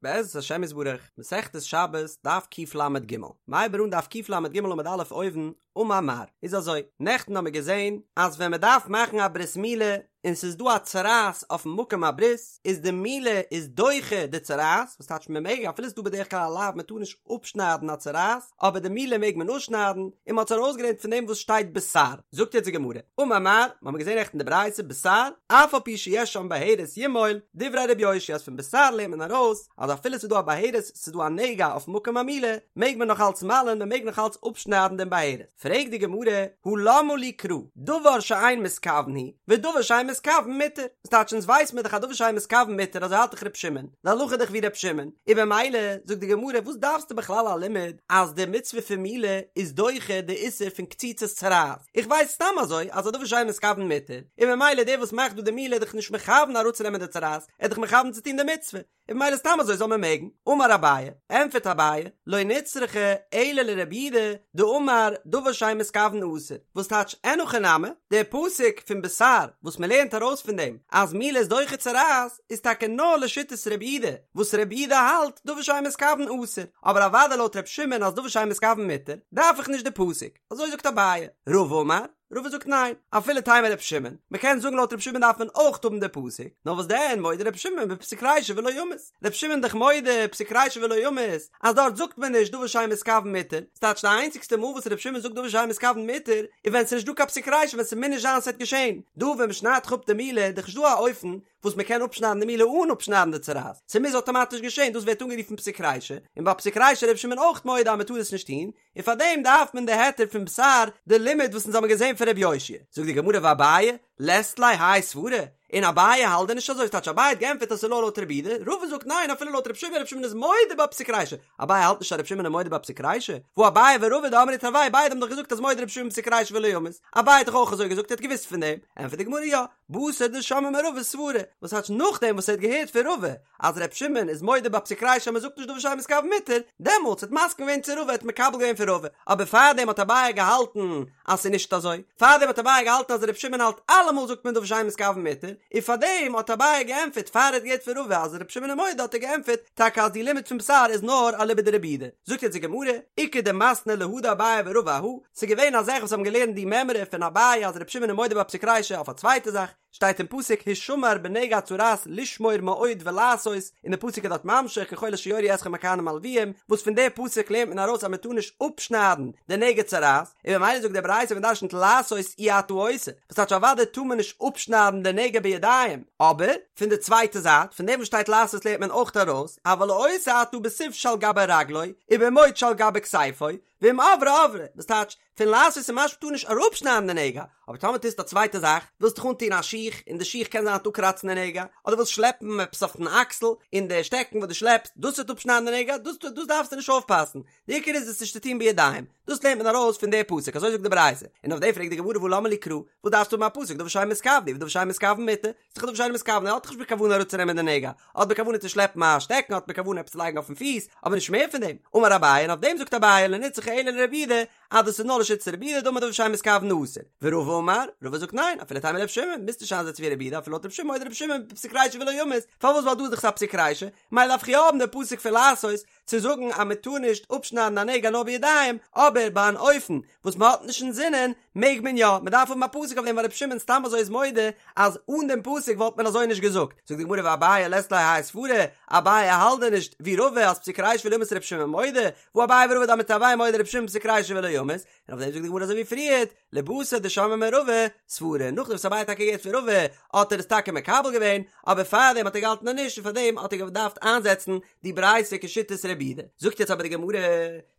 בעזרת השם יתברך, מסכת שבת, דף קל"ג. מ'הייבט אן דף קל"ג עמוד א' אויבן, אמר מר. איז אזוי, נעכטן האמיר געזען אז ווען מ'דארף מאכן א ברית מילה און ס'איז דא א צרעת אויפן מקום הברית, איז די מילה איז דוחה די צרעת, וואס טייטש מ'מעג אפילו ס'איז דא בדרך כלל א לאו מ'טאר נישט אפשניידן א צרעת, אבער די מילה מעג מען אפשניידן, און מ'האט עס ארויסגעלערנט פון דעם וואס שטייט בתר. זאגט יעצט די גמרא, אמר מר, מ'האמיר געזען נעכטן די ברייתא בתר, אף על פי שיש שם בהרת ימול, דברי ר' יאשיה אז פון בתר לערנט מען ארויס אז אפילו ס'איז דא א בהרת, ס'איז דא א נגע אויפן מקום המילה, מעג מען נאך אלץ מל'ען, מ'מעג נאך אלץ אפשניידן דעם בהרת. פרעגט די גמרא, הא למה לי קרא, דבר שאין מתכוין הוא, ודבר שאין מתכוין מותר, וואס טייטש אונז ווייס מיר דאך אז דבר שאין מתכוין מותר אזוי האלט דאך ר' שמעון, די הלכה איז דאך ווי ר' שמעון, און במילא זאגט די גמרא וואס דארפסטו בכלל א לימוד אז די מצוה פון מילה איז דוחה די איסור פון קציצת צרעת, איך ווייס סתם אזוי אז א דבר שאין מתכוין מותר, און במילא דער וואס מאכט דא די מילה איז דאך נישט מכוון אראפצונעמען די צרעת, ער איז דאך מכוון צו טון די מצוה, און במילא סתם אזוי זאל מען מעגן. אמר אביי, ענטפערט אביי, לא נצרכה אלא לרבי יהודה דאמר דבר שאין מתכוין אסור, וואס טייטש אין הכי נמי, דער פסוק פון בתר וואס מען לערנט ארויס פון דעם אז מילה איז דוחה צרעת איז טאקע נאר לשיטת רבי יהודה, וואס רבי יהודה האלט דבר שאין מתכוין אסור, אבער אוודאי לויט רבי שמעון אז דבר שאין מתכוין מותר, דארף איך נישט די פסוק, אזוי זאגט אביי. רבא אמר, רבא זאגט ניין, אפילו תימא רבי שמעון, מען קען זאגן לויט רבי שמעון דארף מען אויך האבן די פסוק, נאר וואס דען מודה רבי שמעון בפסיק רישא ולא ימות, רבי שמעון דאך מודה פסיק רישא ולא ימות, אז דארט זאגט מען נישט דבר שאין מתכוין מותר, ס'טייטש די איינציגסטע מאל וואס רבי שמעון זאגט דבר שאין מתכוין מותר, איז ווען ס'איז נישט דא קיין פסיק רישא ווען ס'מוז נישט זיין ס'וועט געשען, דא ווען מ'שניידט דאך אפ די מילה איז דאך נישט דא א אופן וואס מ'קען אפשניידן די מילה אן אפשניידן די צרעת, ס'מוז אטאמאטיש געשען, דאס ווערט אנגערופן פסיק רישא, און ביי פסיק רישא איז רבי שמעון אויך מודה אז מ'טאר עס נישט טון, און פאר דעם דארף מען די היתר פון בתר די לימוד וואס אונז האבן געזען פון ר' יאשיה. זאגט די גמרא ואביי לית ליה האי סברא, און אביי האלט דען נישט אזוי, ס'טייטש אביי האט געענטפערט אז ס'איז נאר לויט רבי יהודה, רבא זאגט ניין אפילו לויט ר' שמעון, ר' שמעון איז מודה בפסיק רישא, אביי האלט נישט אז ר' שמעון איז מודה בפסיק רישא, והא אביי ורבא דאמרי תרוייהו ביידע האבן דאך געזאגט אז מודה ר' שמעון בפסיק רישא ולא ימות, אביי האט דאך אויך אזוי געזאגט ער האט געוואוסט פון דעם, ענטפערט די גמרא יא, בתר דשמעה מרבא סברא, וואס טייטש נאכדעם וואס ער האט געהערט פון רבא אז ר' שמעון איז מודה בפסיק רישא אז מען זאגט נישט דבר שאין מתכוין מותר, דעמאלטס האט מסכים געווען צו רבא האט מקבל געווען פון רבא, אבער פארדעם האט אביי געהאלטן אז ס'איז נישט אזוי, פארדעם האט אביי געהאלטן אז ר' שמעון האלט אלעמאל זאגט מען דבר שאין מתכוין מותר, און פארדעם האט אביי געענטפערט פאר ער האט געהערט פון רבא אז ר' שמעון איז מודה האט ער געענטפערט טאקע אז די לימוד פון בתר איז נאר אליבא דרבי יהודה. זאגט יעצט די גמרא, איכא דמתני להא דאביי ורבא אהא, ס'איז געווען א זאך וואס האבן געלערנט די מימרא פון אביי אז ר' שמעון איז מודה בפסיק רישא אויף א צווייטע זאך, שטייט אין פסוק הישמר בנגע הצרעת לשמור מאוד ולעשות, און די פסוק איז דארט ממשיך ככל אשר יורו אתכם הכהנים הלוויים, וואס פון די פסוק לערנט מען ארויס אז מען טאר נישט אפשניידן די נגע צרעת, און ממילא זאגט די ברייתא מען דרשנ'ט לעשות אי אתה עושה, וואס טייטש אוודאי טאר מען נישט אפשניידן די נגע בידיים, אבער פון די צווייטע זייט פון דעם וואס שטייט לעשות לערנט מען אויך ארויס אבל עושה אתה בסיב שעל גבי רגלו ובמוט שעל גבי כתפו, ואם עברה עברה, וואס טייטש, פון לעשות איז משמע טאר נישט אראפשניידן די נגע, אבער טאמער טוסטו א צווייטע זאך, ווילסט דיך אנטון א שיך, און די שיך קען זיין וועט אפקראצן די נגע, אדער ווילסט שלעפן עפעס אויפן אקסל, און די שטעקן וואס דו שלעפסט, דאס וועט אפשניידן די נגע, דאס דאס דארפסטו נישט אויפפאסן, די עיקר איז עס נישט צו טון בידיים, דאס לערנט מען ארויס פון די פסוק, אזוי זאגט די ברייתא, און אויף דעם פרעגט די גמרא והא למה לי קרא, וואס דארפסטו האבן א פסוק, דבר שאין מתכוין הוא, ודבר שאין מתכוין מותר, ס'איז דאך דבר שאינו מתכוין, ער האט דאך נישט בכוונה אראפצונעמען די נגע, ער האט בכוונה צו שלעפן א שטעקן, האט בכוונה עפעס צו לייגן אויפן פיס, אבער נישט מער פון דעם. אמר אביי, און אויף דעם זאגט אביי, לא נצרכה אלא לרבי יהודה, אז דאס איז נאר לשיטת רבי יהודה, דאמר דבר שאין מתכוין אסור. ורבא אמר, רבא זאגט ניין, אפילו תימא רבי שמעון, מוזט נישט איינזעצן ווי רבי יהודה, אפילו לויט רבי שמעון, מודה רבי שמעון בפסיק רישא ולא ימות, פארוואס ווייל דא איז דאך א פסיק רישא, מילא דארף איך יא האבן די פסוק פון לעשות, צו זאגן אז מען טאר נישט אפשניידן א נגע נאר בידיים, אבער ביי אן אופן וואס מען האט נישט אינזינען מעג מען יא, מען דארף האבן א פסוק אויף דעם ווייל רבי שמעון סתם אזוי איז מודה אז אן דעם פסוק וואלט מען אזוי נישט געזאגט, זאגט די גמרא ואביי לית ליה האי סברא, אביי האלט דען נישט ווי רבא אז פסיק רישא ולא ימות רבי שמעון מודה, והא אביי ורבא דאמרי תרוייהו מודה רבי שמעון בפסיק רישא ולא ימות, און אויף דעם זאגט די גמרא אזוי ווי פריערט, לבתר דשמעה מרבא סברא, נאכדעם וואס אביי האט טאקע געהערט פון רבא האט ער עס טאקע מקבל געווען, אבער פארדעם האט ער געהאלטן אז נישט און פארדעם האט ער געדארפט איינזעצן די ברייתא כשיטת רבי יהודה. זאגט יעצט אבער די גמרא,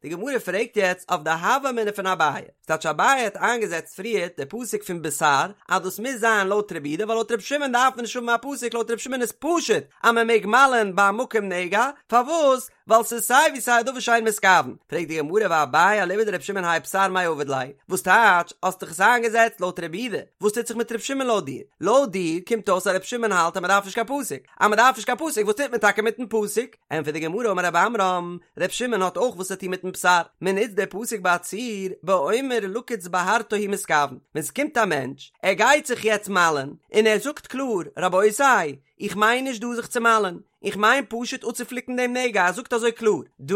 די גמרא פרעגט יעצט אויף די הוה אמינא פון אביי, ס'טייטש אביי האט איינגעזעצט פריערט די פסוק פון בתר אז דאס מוז זיין לויט רבי יהודה ווייל לויט רבי שמעון דארף מען נישט האבן א פסוק לויט רבי שמעון איז פשוט אז מען מעג מל'ען ביי א מקום נגע, פארוואס? ווייל ס'איז סיי ווי סיי א דבר שאין מתכוין. פרעגט די גמרא ואביי אליבא דרבי שמעון האי בתר מאי עביד ליה, וואס טייטש האסט דאך עס איינגעזעצט לויט רבי יהודה, וואס טוט זיך מיט רבי שמעון לויט דיר? לויט דיר קומט אויס אז רבי שמעון האלט אז מען דארף נישט קיין פסוק, אז מען דארף נישט קיין פסוק וואס טוט מען טאקע מיטן פסוק? ענטפערט די גמרא אמר רב עמרם, ר' שמעון האט אויך וואס צו טון מיטן בתר, מען נוצט די פסוק ביי א ציור, באומר לקוץ בהרתו הוא מתכוין, ווען ס'קומט א מענטש, ער גייט זיך יעצט מל'ען, און ער זאגט קלאר, רבותי, איך מיין נישט דא זיך צו מל'ען, איך מיין פשוט אפצופליקן דעם נגע, ער זאגט אזוי קלאר דא,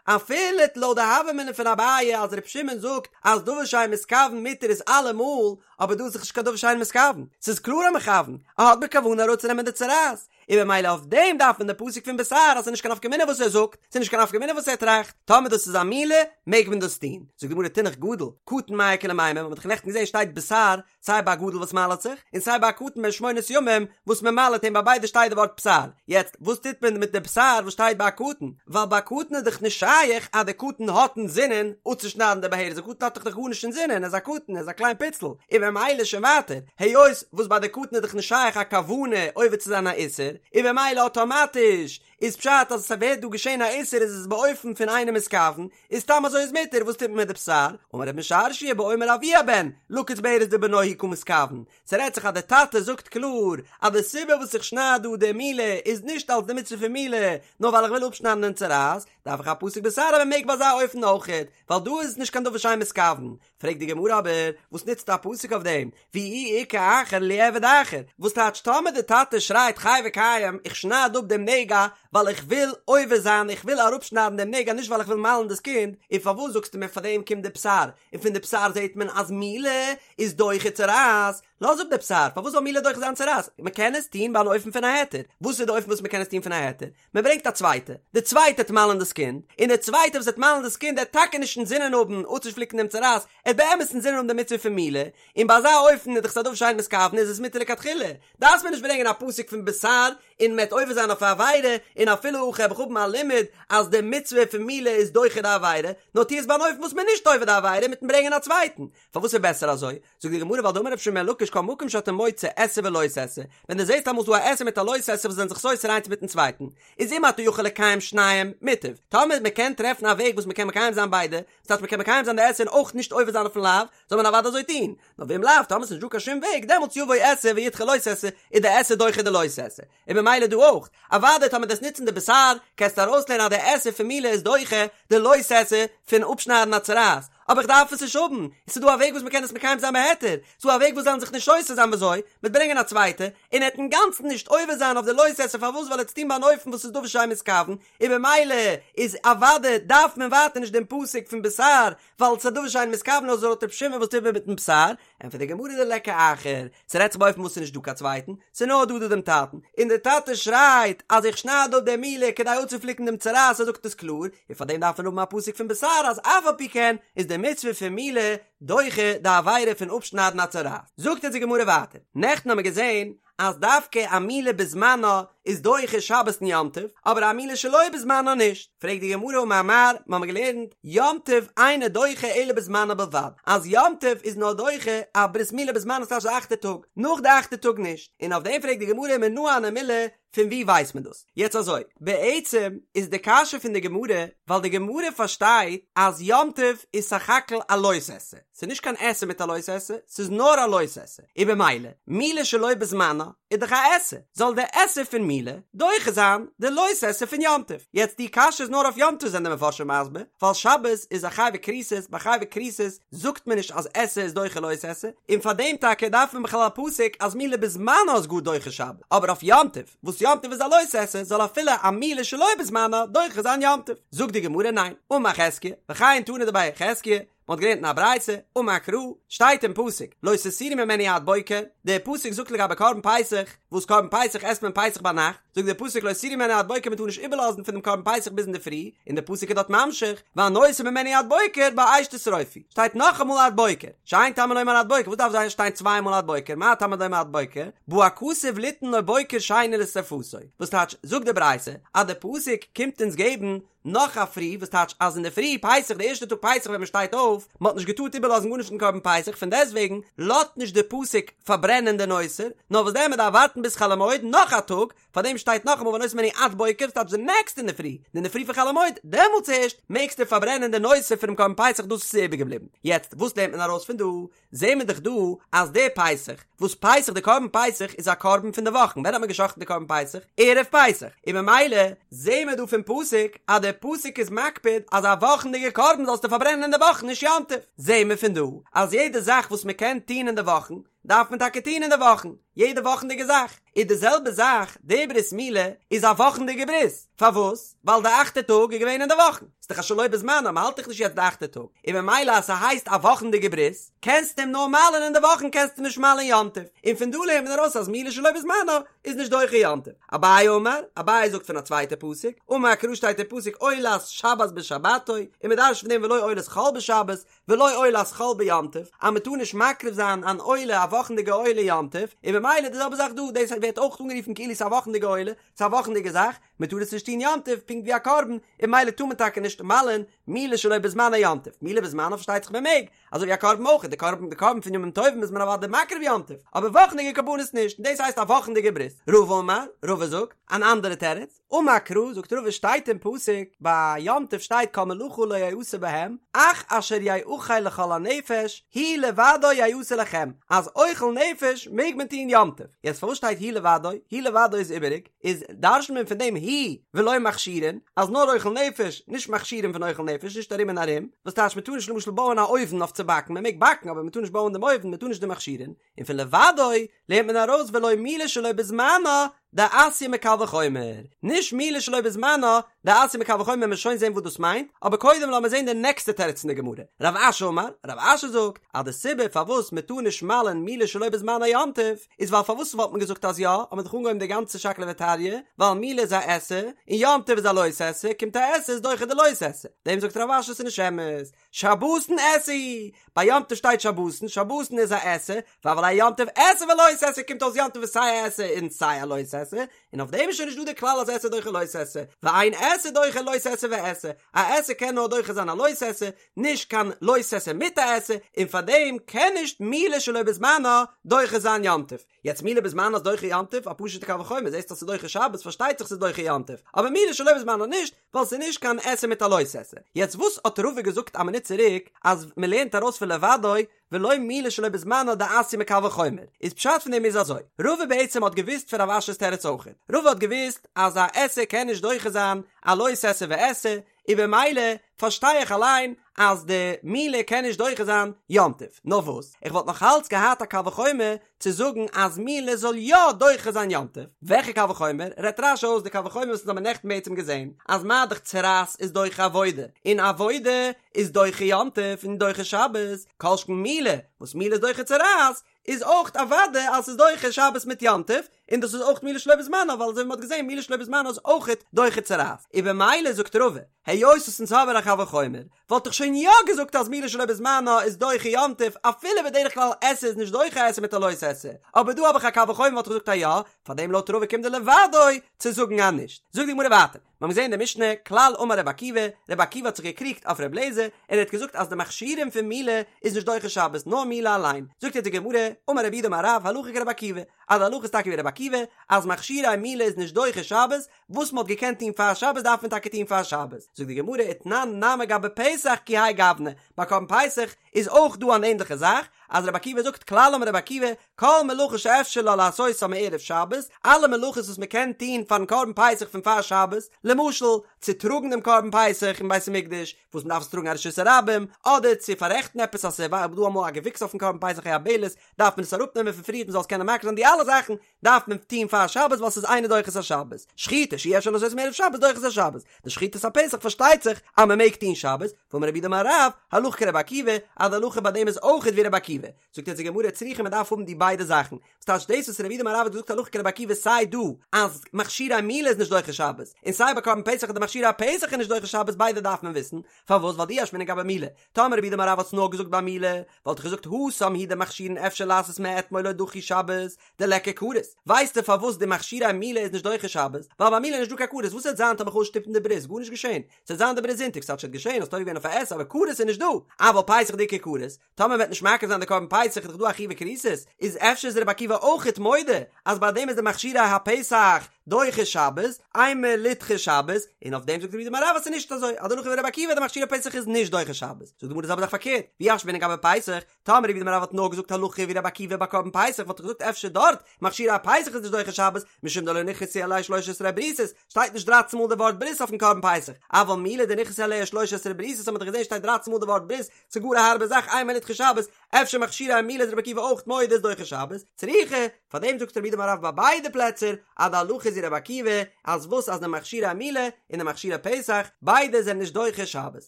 אפילו לויט די הוה אמינא פון אביי אז ר' שמעון זאגט אז דבר שאין מתכוון מותר איז אלעמאל, אבער דא איז דאך נישט קיין דבר שאין מתכוון, ס'איז קלאר א מכוון, ער האט בכוונה אראפצונעמען די צרעת, און במילא אויף דעם דארף מען די פסוק פון בשר אז ס'איז נישט קיין נפקא מינה וואס ער זאגט, ס'איז נישט קיין נפקא מינה וואס ער טראכט, טאמער דאס איז א מילה מעג מען דאס טון. זאגט די גמרא תינח גדול, קטן מאי איכא למימר, מ'האט דאך נעכטן געזען שטייט בשר סיי ביי א גדול וואס מל'עט זיך, און סיי ביי א קטן בן שמונת ימים וואס מען מל'עט אים ביי ביידע שטייט די ווארט בשר, יעצט וואס טוט מען מיט די בשר וואס שטייט ביי א קטן, ווייל ביי א קטן איז דאך נישט שייך אז די קטן האט אינזינען אפצושניידן די בהרת, די קטן האט דאך גארנישט אינזינען, ער איז א קטן, ער איז א קליין פיצל, און במילא שוין ווייטער, היות וואס ביי די קטן איז דאך נישט שייך א כוונה עובר צו זיין א איסור, און במילא אטאמאטיש איז פשט אז עס ווערט דא געשען א איסור איז עס באופן פון אינו מתכוון, איז סתם אזוי איז מותר, וואס טוט מען מיט די בשר? אמר רב משרשיא באומר אבי הבן, לקוץ בהרת דבנו הוא קא מתכוון, ס'רעדט זיך אז די טאטע זאגט קלאר אז די סיבה וואס איך שנייד דא די מילה איז נישט אלס די מצוה פון מילה, נאר ווייל איך וויל אפשניידן דעם צרעת, דארף איך א פסוק בשר אז מען מעג ביי אזא אופן אויכעט, ווייל דא איז עס נישט קיין דבר שאין מתכוון. פרעגט די גמרא אבער, וואס נוצט א פסוק אויף דעם? ואי איכא אחר ליעביד אחר, וואס טייטש טאמער די טאטע שרייט חי וקיים איך שנייד אפ דעם נגע ווייל איך וויל עובר זיין איך וויל אראפשניידן דעם נגע נישט ווייל איך וויל מל'ן דאס קינד, און פארוואס זאגסטו מיר פארדעם קומט די בשר, און פון די בשר זעט מען אז מילה איז דוחה צרעת, לאז אפ די בשר, פארוואס זאל מילה דוחה זיין צרעת? מען קען עס טון ביי אן אופן פון א היתר, וואס איז די אופן וואס מען קען עס טון פון א היתר? מען ברענגט א צווייטע, די צווייטע וועט מל'ן דאס קינד, און די צווייטע וואס וועט מל'ן דאס קינד עט טאקע נישט אינזינען האבן אפצופליקן דעם צרעת, עט באמת אינזינען האבן די מצוה פון מילה, און ביי אזא אופן איז דאך עס א דבר שאין מתכוון איז עס מותר לכתחילה, דארף מען נישט ברענגען א פסוק פון בשר און מען וועט עובר זיין אויף א עבירה, און אפילו הכי האב איך האבן א לימוד אז די מצוה פון מילה איז דוחה די עבירה, נאר טו עס ביי אן אופן וואס מען איז נישט עובר די עבירה מיטן ברענגען א צווייטן, פארוואס איז בעסער אזוי? זאגט די גמרא ווייל דאמר רבי שמעון בן לקיש כל מקום שאתה מוצא עשה ולא תעשה, ווען דו זעסט אמאל ס'דא א עשה מיט א לא תעשה וואס זענען זיך סותר איינס מיטן צווייטן, איז אם אתה יכול לקיים שניהם, מוטב. טאמער מען קען טרעפן א וועג וואס מען קען מקיים זיין ביידע, דאס הייסט מען קען מקיים זיין די עשה און אויך נישט עובר זיין אויפן לאו, זאל מען אוודאי אזוי טון. נאר ואם לאו, טאמער ס'איז נישט דא קיין שום וועג, דעמאלטס יבוא עשה וידחה לא תעשה, איז די עשה דוחה די לא תעשה. און במילא דא אויך, אוודאי טאמער דו'סט נוצן די בשר, קענסטו ארויסלערנען אז די עשה פון מילה איז דוחה די לא תעשה פון אפשניידן א צרעת, אבער איך דארף עס נישט האבן, עס איז דא א וועג וואס מ'קען עס מקיים זיין בהיתר, ס'איז דא א וועג וואס זאלן זיך נישט סותר זיין וויאזוי, מ'וועט ברענגען א צווייטע, און ער וועט אינגאנצן נישט עובר זיין אויף די לא תעשה פארוואס ווייל ער וועט עס טון ביי אן אופן וואס איז דבר שאין מתכוון, און במילא איז אוודאי דארף מען ווייטער נישט דעם פסוק פון בשר, ווייל ס'איז א דבר שאין מתכוון אזוי לויט ר' שמעון וואס טוט מען מיטן בשר, ענטפערט די גמרא דליכא אחר, ס'רעדט זיך באופן וואס ס'איז נישט דא קיין צווייטן, ס'איז נאר דא דא דעם טאטן, און דער טאטע שרייט אז איך שנייד אפ די מילה כדי אפצופליקן דעם צרעת, ער זאגט עס קלאר, און פאר דעם דארף מען האבן א פסוק פון בשר אז אף על פי כן איז די מצוה פון מילה דוחה די עבירה פון אפשניידן א צרעת. זאגט אונז די גמרא ווייטער, נעכטן האמיר געזען אז דווקא א מילה בזמנה איז דוחה שבת און יום טוב, אבער א מילה שלא בזמנה נישט. פרעגט די גמרא אמר מר, מ'האמיר געלערנט, יום טוב אינו דוחה אלא בזמנה בלבד, אז יום טוב איז נאר דוחה א ברית מילה בזמנה ס'טייטש די אכטע טאג, נאך די אכטע טאג נישט, און אויף דעם פרעגט די גמרא מנא הני מילי, פון וואו ווייסט מען דאס? יעצט אזוי, בעצם איז די קשיא פון די גמרא, ווייל די גמרא פארשטייט אז יום טוב איז סך הכל א לא תעשה, ס'איז נישט קיין עשה מיט א לא תעשה, ס'איז נאר א לא תעשה, און במילא, מילה שלא בזמנה איז דאך א עשה, זאל די עשה פון מילה דוחה זיין די לא תעשה פון יום טוב. יעצט די קשיא איז נאר אויף יום טוב זענען די מפרשים מסביר, ווייל שבת איז א חייבי כריתות, ביי חייבי כריתות זאגט מען נישט אז עשה איז דוחה לא תעשה, און פאר דעם טאקע דארף מען בכלל א פסוק אז מילה בזמנה איז גאר דוחה שבת, אבער אויף יום טוב, וואס יום טוב איז א לא תעשה, זאל אפילו א מילה שלא בזמנה דוחה זיין יום טוב. זאגט די גמרא ניין, אמר חזקיה, וכן תנא דבי חזקיה, מען האט געלערנט אין א ברייתא, אמר קרא, שטייט אין פסוק, לא תותירו ממנו עד בוקר, דער פסוק זאגט לגבי קרבן פסח, וואס קרבן פסח עסט מען פסח ביינאכט, זאגט דער פסוק לא תותירו ממנו עד בוקר מען טאר נישט איבערלאזן פון דעם קרבן פסח ביז אינדערפרי, און דער פסוק איז דארט ממשיך, והנותר ממנו עד בוקר באש תשרופו, שטייט נאכאמאל עד בוקר, שאין תלמוד לומר עד בוקר, וואס דארף זיין שטיין צוויי מאל עד בוקר, מה תלמוד לומר עד בוקר, בא הכתוב ליתן לו בוקר שני לשרפתו, וואס טייטש, זאגט די ברייתא, אז דער פסוק קומט אונז געבן נאך א פרי, וואס טייטש אז אינדערפרי פסח די ערשטע טאג פסח ווען מען שטייט אויף, מען האט נישט געטארט איבערלאזן גארנישט פון קרבן פסח, פון דעסטוועגן לאזט נישט די פסוק פארברענען די נותר, נאר וואס דען מען דארף ווארטן ביז חול המועד נאך א טאג, פארדעם שטייט נאכאמאל והנותר ממנו עד בוקר, וואס טייטש די נעקסטע אינדערפרי, די אינדערפרי פון חול המועד, דעמאלטס ערשט מעגסטו פארברענען די נותר פונעם קרבן פסח דאס וואס איז איבערגעבליבן. יעצט וואס לערנט מען ארויס פון דא? זעהן מיר דאך דא אז די פסח, וואס פסח די קרבן פסח איז א קרבן פון די וואכן, ווען האט מען גע'שחט'ן די קרבן פסח? ערב פסח, און ממילא זעהן מיר דא פון פסוק אז די פסוק איז מקפיד אז א וואכנדיגע קרבן זאלסטו פארברענען אין די וואכן נישט יום טוב, זעהן מיר פון דא אז יעדע זאך וואס מען קען טוהן אין די וואכן דארף מען טאקע טוהן אין די וואכן. יעדע וואכנדיגע זאך, איז די זעלבע זאך די ברית מילה איז א וואכנדיגע ברית, פארוואס? ווייל די אכטע טאג איז געווען אין די וואכן, ס'איז דאך א שלא בזמנה, מ'האלט דאך נישט יעצט די אכטע טאג, און ממילא אז ס'הייסט א וואכנדיגע ברית, קענסטו אים נאר מל'ען אין די וואכן קענסטו נישט מל'ען יום טוב, און פון דא לערנט מען ארויס אז מילה שלא בזמנה איז נישט דוחה יום טוב. אביי אמר, אביי זאגט פון א צווייטע פסוק, אמר קרא שטייט אין פסוק עולת שבת בשבתו, און מ'דרש'ט פון דעם ולא עולת חול בשבת, ולא עולת חול ביום טוב, אז מען טאר נישט מקריב זיין אן עולה א וואכנדיגע עולה יום טוב, און ממילא די זעלבע זאך דא, דאס ווערט אויך אנגערופן כאילו ס'איז א וואכנדיגע עולה, ס'איז א וואכנדיגע זאך, מען טאר עס נישט טון יום טוב, פונקט ווי א קרבן, און ממילא טאר מען טאקע נישט מל'ען מילה שלא בזמנה יום טוב, מילה בזמנה פארשטייט זיך מען מעג, אזוי ווי א קרבן אויך, די קרבן די קרבן פון ימים טובים איז מען אוודאי מקריב יום טוב, אבער וואכנדיגע קרבנות נישט, און דאס הייסט א וואכנדיגע ברית. רבא אמר, רבא זאגט, אן אנדערע תירוץ, אמר קרא, זאגט רבא שטייט אין פסוק, ביי יום טוב שטייט כל מלאכה לא יעשה בהם, אך אשר יאכל לכל הנפש, הוא לבדו יעשה לכם, אז אוכל נפש מעג מען טון יום טוב. יעצט פארוואס שטייט הוא לבדו? הוא לבדו איז איבעריג, איז דרש'נט מען פון דעם הוא ולא מכשירין, אז נאר אוכל נפש, נישט מכשירים פון אוכל נפש, נישט ארום און ארום, וואס טייטש מען טאר נישט למשל בויען א אויוון אויף צו באקן, מען מעג באקן אבער מען טאר נישט בויען דעם אויוון, מען טאר נישט די מכשירין, און פון לבדו לערנט מען ארויס ולא מילה שלא בזמנה דאתיא מקל וחומר, נישט מילה שלא בזמנה דאתיא מקל וחומר מ'וועט שוין זען וואס דאס מיינט, אבער קודם לאמיר זען די נעקסטע תירוץ אין די גמרא, רב אשי אמר, רב אשי זאגט אז די סיבה פארוואס מען טאר נישט מל'ען מילה שלא בזמנה יום טוב, איז ווייל פארוואס וואלט מען געזאגט אז יא, האט מען דאך אנגעהויבן די גאנצע שקלא וטריא, ווייל מילה איז א עשה, און יום טוב איז א לא תעשה, קומט א עשה איז דוחה די לא תעשה, דעם זאגט רב אשי ס'איז נישט אמת, שבתון עשה הוא, ביי יום טוב שטייט שבתון, שבתון איז א עשה, והוה ליה יום טוב עשה ולא תעשה קומט אויס יום טוב איז סיי א עשה און סיי א לא תעשה, און אויף דעם איז שוין נישט דא די כלל אז עשה דוחה לא תעשה, ואין עשה דוחה לא תעשה ועשה, א עשה קען נאר דוחה זיין א לא תעשה, נישט קיין לא תעשה מיט א עשה, און פאר דעם קען נישט מילה שלא בזמנה דוחה זיין יום טוב. יעצט מילה בזמנה איז דוחה יום טוב, א פשוט'ע קל וחומר, זעסט אז ס'איז דוחה שבת פארשטייט זיך ס'איז דוחה יום טוב, אבער מילה שלא בזמנה נישט, ווייל ס'איז נישט קיין עשה מיט א לא תעשה. יעצט וואס האט רבא געזאגט א מינוט צוריק אז מ'לערנט ארויס פון לבדו ולא מילה שלא בזמנה דאתיא מקל וחומר, איז פשט פון דעם איז אזוי, רבא בעצם האט געוואוסט פון רב אשי'ס תירוץ אויכעט, רבא האט געוואוסט אז א עשה קען נישט דוחה זיין א לא תעשה ועשה, און במילא פארשטיי איך אליין אז די מילה קען נישט דוחה זיין יום טוב, נאר וואס איך וואלט נאך אלץ געהאט א קל וחומר צו זאגן אז מילה זאל יא דוחה זיין יום טוב, וועלכע קל וחומר? רעדט רש"י אויס די קל וחומר וואס אונז האבן נעכטן בעצם געזען, אז מה דאך צרעת איז דוחה עבודה, און עבודה איז דוחה יום טוב און דוחה שבת, כל שכן מילה, וואס מילה איז דוחה צרעת, איז אויך אוודאי אז ס'איז דוחה שבת מיט יום טוב, און דאס איז אויך מילה שלא בזמנה, ווייל אזוי ווי מ'האט געזען מילה שלא בזמנה איז אויך דוחה צרעת, און במילא זאגט רבא, היות וואס אונז האבן א קל וחומר, וואלט איך שוין יא געזאגט אז מילה שלא בזמנה איז דוחה יום טוב, אפילו בדרך כלל עשה איז נישט דוחה עשה מיט א לא תעשה, אבער דא האב איך א קל וחומר וואלט איך געזאגט אז יא, פארדעם לויט רבא קומט די לבדו צו זאגן אז נישט. זאגט די גמרא ווייטער. מיר האבן געזען אין די משנה, כלל אמר רבי עקיבא, רבי עקיבא האט זיך געקריגט אויף רבי אליעזר, און ער האט געזאגט אז די מכשירים פון מילה איז נישט דוחה שבת, נאר מילה אליין. זאגט יעצט די גמרא, אמר רב יהודה אמר רב, הלכה כרבי עקיבא, אז די הלכה איז טאקע ווי רבי עקיבא, אז מכשירי מילה איז נישט דוחה שבת, וואס מען האט געקענט טון פאר שבת דארף מען טאקע טון פאר שבת. זאגט די גמרא, ותנן נמי גבי פסח כי האי גוונא, ביי קרבן פסח איז אויך דא אן ענדליכע זאך, אז רבי עקיבא זאגט כלל אמר רבי עקיבא, כל מלאכה שאפשר לה לעשותה מערב שבת, אלע מלאכות וואס מען קען טון פארן קרבן פסח פון פאר שבת, למשל, צו טראגן דעם קרבן פסח אין בית המקדש, וואס מען דארף עס טראגן א רשות הרבים, אדער צו פאררעכטן עפעס אז ס'איז דא אמאל א געוויקס אויפן קרבן פסח א יבלת, דארף מען עס אראפנעמען פון פריערט מען זאל עס קענען מקריב זיין, די אלע זאכן דארף מען טון פאר שבת ווייל ס'איז אינו דוחה את השבת. שחיטה שאי אפשר לעשותה מערב שבת דוחה את השבת. די שחיטת הפסח פארשטייט זיך אז מען מעג טון שבת, ואמר רב יהודה אמר רב, הלכה כרבי עקיבא, אז די הלכה ביי דעם איז אויכעט ווי רבי עקיבא. זאגט יעצט די גמרא צריכא מען דארף האבן די ביידע זאכן, וואס טייטש דאס וואס רב יהודה אמר רב האט געזאגט הלכה כרבי עקיבא סיי דא אז מכשירי מילה איז נישט דוחה שבת, און סיי ביי קרבן פסח אז די מכשירי הפסח איז נישט דוחה שבת ביידע דארף מען וויסן, פארוואס ווייל דאי אשמעינן גבי מילה, טאמער רב יהודה אמר רב האט עס נאר געזאגט ביי מילה, וואלט איך געזאגט התם הוא דמכשירין אפשר לעשות מאתמול לא דחו שבת, דליכא כרת, ווייסטו פארוואס די מכשירי מילה איז נישט דוחה שבת? ווייל ביי מילה איז נישט דא קיין כרת, וואס וועט זיין טאמער כ'וועל שטופן די ברית, גארנישט געשען, ס'וועט זיין די ברית זונטאג, ס'האט שוין געשען, האסט עובר געווען אויף א עשה, אבער כרת איז נישט דא, אבל פסח דאיכא כרת, טאמער מ'וועט נישט מקריב זיין די קרבן פסח איז דאך דא א חיוב כריתות, איז אפשר איז רבי עקיבא אויכעט מודה אז ביי דעם איז די מכשירי הפסח. דוחה שבת, אימא לידחה שבת, און אויף דעם זאגט רב יהודה אמר רב אז ס'איז נישט אזוי, אז די הלכה ווי רבי עקיבא די מכשירי פסח איז נישט דוחה שבת, זאגט די גמרא די זעלבע זאך פארקערט, ואי אשמעינן גבי פסח, טאמער רב יהודה אמר רב האט נאר געזאגט הלכה ווי רבי עקיבא ביי קרבן פסח וואלט איך געזאגט אפשר דארט מכשירי הפסח איז נישט דוחה שבת משום דלא נכרתו עליה שלש עשרה בריתות שטייט נישט דרייצן מאל די ווארט ברית אויפן קרבן פסח אבל מילה דנכרתו עליה שלש עשרה בריתות האט מען דאך געזען שטייט דרייצן מאל די ווארט ברית ס'איז גאר א הארבע זאך אימא לידחה שבת אפשר מכשירי מילה איז רבי עקיבא אויך מודה איז דוחה שבת צריכא פארדעם זאגט רב יהודה אמר רב ביי ביידע פלעצער אז די הלכה איז ווי רבי עקיבא אז וואס אז די מכשירי מילה און די מכשירי פסח ביידע זענען נישט דוחה שבת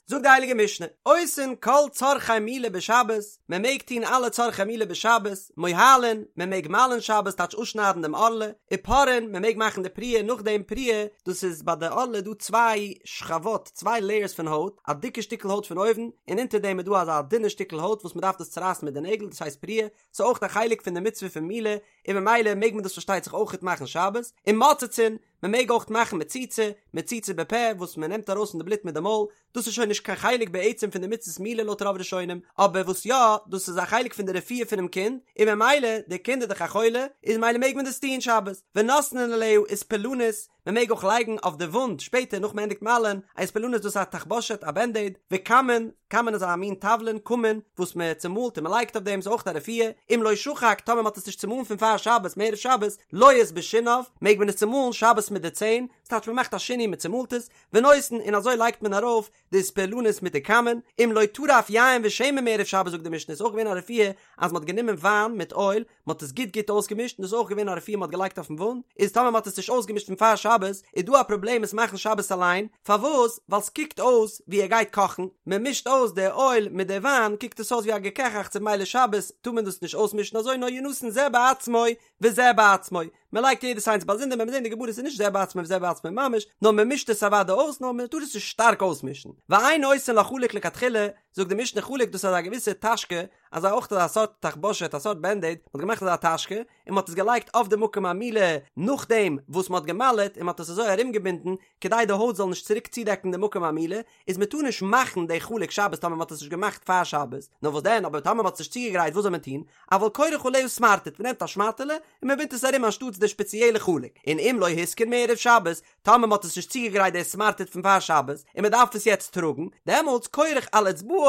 זאגט די הייליגע משנה עושין כל צרכי מילה בשבת מען מעג טון אלע צרכי מילה בשבת מוהלין מען מעג מל'ן שבת טייטש אפשניידן דעם ערלה ופורעין מען מעג מאכן די פריעה נאכדעם פריעה דאס איז ביי די ערלה דא צוויי שכבות צוויי לעיערס פון הויט א דיקע שטיקל הויט פון אויבן און אונטער דעם איז דא אזא דינע שטיקל הויט וואס מען דארף דאס צורייסן מיט די נעגל דאס הייסט פריעה ס'איז אויך א חלק פון די מצוה פון מילה, און ממילא מעג מען דאס פארשטייט זיך אויכעט מאכן שבת, ומוצצין, מען מעג אויך מאכן מציצה, מציצה בפה, וואס מען נעמט ארויס פון די בלוט מיט די מויל, דאס איז שוין נישט קיין חלק בעצם פון די מצות מילה לויט רוב ראשונים, אבער וואס יא, דאס איז א חלק פון די רפואה פונעם קינד, און ממילא, די קינד איז דאך א חולה, איז ממילא מעג מען דאס טון שבת, ונותנין עליה אספלנית, מען מעג אויך לייגן אויף די וואונד שפעטער נאך מען ענדיגט מל'ען, א אספלנית דאס איז א תחבושת א בענדעיד, וכמון, כמון איז א מין תבלין, כמון, וואס מען צומאלט און מען לייגט אויף דעם איז אויך א רפואה, אם לא שחק טאמער מען האט עס נישט צומאלן פון פאר שבת מערב שבת, לועס בשיניו, מעג מען עס צומאלן שבת מיט די ציין, ס'טייטש מען מאכט א שינוי מען צומאלט עס, ונותן און אזוי לייגט מען ארויף די אספלנית מיט די כמון, אם לא טרף יין ושמן מערב שבת זאגט די משנה איז אויך געווען א רפואה אז מען האט גענומען וויין מיט אויל, מען האט עס גוט גוט אויסגעמישט און דאס איז אויך געווען א רפואה מען האט געלייגט אויפן וואונד, איז טאמער מען האט עס נישט אויסגעמישט פון פאר שבת איז דא א פראבלעם עס מאכן שבת אליין, פארוואס? ווייל סקוקט אויס ווי ער גייט קאכן, מען מישט אויס די אויל מיט די וויין קוקט עס אויס ווי א געקעכאכץ און ממילא שבת טאר מען דאס נישט אויסמישן אזוי נאר ינתן זה בעצמו וזה בעצמו, מען לייגט יעדעס איינס באזונדער מען וועט זען די גמרא ס'איז נישט זה בעצמו וזה בעצמו ממש, נאר מען מישט עס אוודאי אויס נאר מען טאר עס נישט שטארק אויסמישן, ואין עושין לה חלוק לכתחילה, זאגט די משנה חלוק דאס איז א געוויסע טאשקע אזא אויך אזא סארט תחבושת א סארט בענדעיד, מען האט געמאכט אזא טאשקע און מען האט עס געלייגט אויף די מקום המילה נאכדעם וואס מען האט געמל'עט און מען האט עס אזוי ארומגעבינדן כדי די הויט זאל נישט צוריק צודעקן די מקום המילה, איז מען טאר נישט מאכן די חלוק שבת טאמער מען האט עס נישט געמאכט פאר שבת, נאר וואס דען אבער טאמער מען האט עס נישט צוגעגרייט וואס זאל מען טון, אבל כורך עליה סמרטוט מען נעמט א שמאטעלע און מען בינדט עס ארום אנשטאטס די שפעציעלע חלוק, און אם לא התקין מערב שבת, טאמער מען האט עס נישט צוגעגרייט די סמרטוט פון פאר שבת און מען דארף עס יעצט טראגן, דעמאלטס כורך על אצבעו